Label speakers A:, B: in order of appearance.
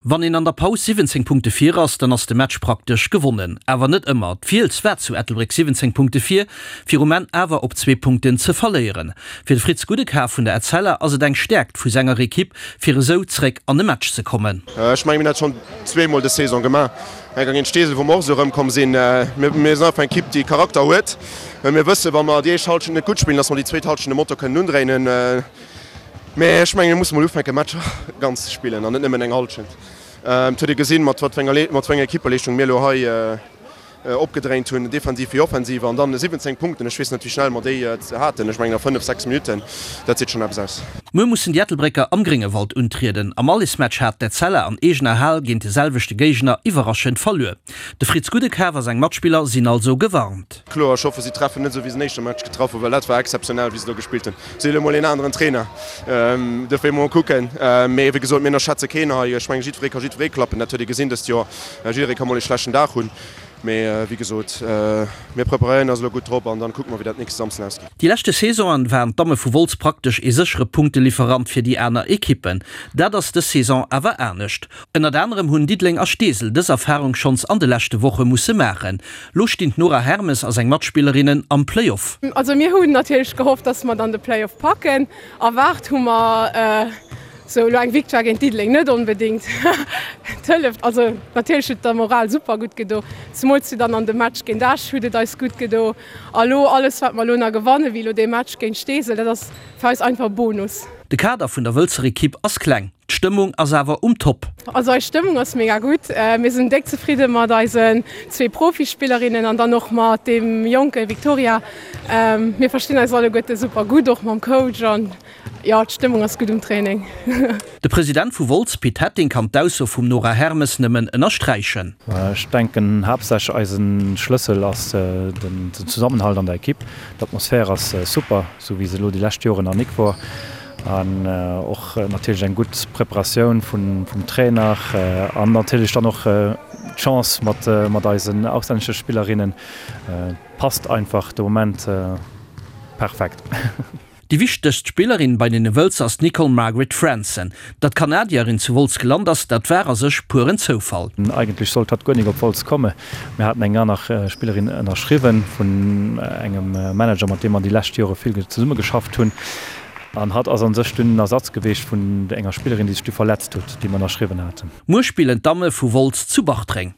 A: Wann een an der Paus 17 Punkte vir ass, dann ass de Match praktesch gewonnen. Awer net ëmmer. D'Fiels war zu Ettelbréck 17 Punkte vir, fir um Enn awer op zwee Punkten ze verléieren. Fir de Fritz Gudekar vun der Etzella ass et eng Stäerkt vu senger Ekipp, fir esou zréck an e Match ze kommen.
B: Ech mengen, mir hunn dat schonn zweemol dës Saison gemaach. Eng Kéier géint Steesel, wou mer och esou erëmkomm sinn. Mir sinn einfach eng Ekipp, déi Charakter huet. Mir wëssen, wa mer déi éischt Hallschent net gutt spillen, dass mer déi zweet Hallschent de Motor kënnen undréinen. Mä ech mengen, mir musse mol ufänken, Matcher ganz ze spillen an net nëmmen eng Hallschent. Et huet ee gesinn, mat wat fir enger, mat wéi enger Equippeleeschtung mir elo hei opgedréint hunn, defensiv wéi offensiv. An dann 17 Punkten, ech weess net, wéi schnell mer déi haten, ech mengen a fënnef, sechs Minutten, dat seet schonn eppes aus.
A: Muer mussen déi Ettelbrécker am Gréngewald untrieden. Am Allesmatch hat d'Etzella an eegener Hal géint de selwechte Géigner iwwerraschend verluer. De Fritz Gudekaf a seng Matspiller sinn also gewarnt.
B: Kloer, ech hoffe si treffen net esou wéi se den éischte Match getraff hunn, well dat war exzeptionell wéi se do gespillt hunn. Si hunn elo mol een aneren Trainer, dofir mol kucken. Mee wéi gesot, mir ënnerschätze keen hei. Ech mengen jiddweree ka jiddweree klappen, dat huet ee gesinn dëst Joer. Jidderee ka mol ee schlechten Dag hunn. Mee wéi gesot, mir preparéieren eis elo gutt drop an dann kucke mer wéi dat nächste Samsden ausgeet.
A: Déi leschte Saisonen waren d'Damme vu Wolz praktesch ee séchere Punktelieferant fir déi aner Ekippen. Dat ass dës Saison awer anescht. Ënnert anerem hunn Diddeleng a Steesel dës Erfarung schonns an de leschte Woche musse maachen. Lo stinn d'Nora Hermes a seng Matspillerinnen am Playoff.
C: Also mir hunn natierlech gehofft, dass mer dann de Playoff packen. Erwaart hu mer sou elo eng Victoire géint Diddeleng net onbedéngt. Et hëlleft, also natierlech huet et der Moral super gutt gedo, zemools jo dann an dem Match géint Esch huet et eis gutt gedo. A lo alles wat mer elo nach gewannen, wéi elo dee Match géint Steesel, dat ass fir eis einfach Bonus.
A: De Kader vun der Wëlzer Ekipp ass kleng, d'Stëmmung ass awer um Top.
C: Also eis Stëmmung ass mega gutt. Mir sinn déck zefridde mat eisen zwee Profispillerinnen an dann och mat deem jonke Victoria. Mir verstinn eis alleguerte super gutt, och mam Coach an jo, d'Stëmmung ass gutt um Training.
A: De President vu Wolz, Pit Hetting, kann d'Ausso vum Nora Hermes nëmmen ënnersträichen.
D: Ech denken haaptsächlech eise Schlëssel ass den Zesammenhalt an der Ekipp. D'Atmosphär ass super, sou wéi se elo déi lescht Joren nach nik wor. An och natierlech eng gutt Preparatioun vum Trainer an natierlech dann och d'Chance mat eisen auslännesche Spillerinnen passt einfach de Moment perfekt.
A: Déi wichtegst Spillerin bei den Wëlzer ass d'Nicole Margaret Fransen. Datt d'Kanadierin zu Wolz gelant ass, dat war a sech pueren Zoufall.
D: Eigentlech sollt hatt guer nik op Wolz komme. Mir haten eng aner Spillerin ënnerschriwwen vun engem Manager, mat deem mer déi lescht Jore vill zesumme geschafft hunn. An hatt ass a sech dunn en Ersatz geweecht vun enger Spillerin, déi sech du verletzt huet, déi mer ënnerschriwwen haten.
A: Muer spillen d'Damme vu Wolz zu Bartreng.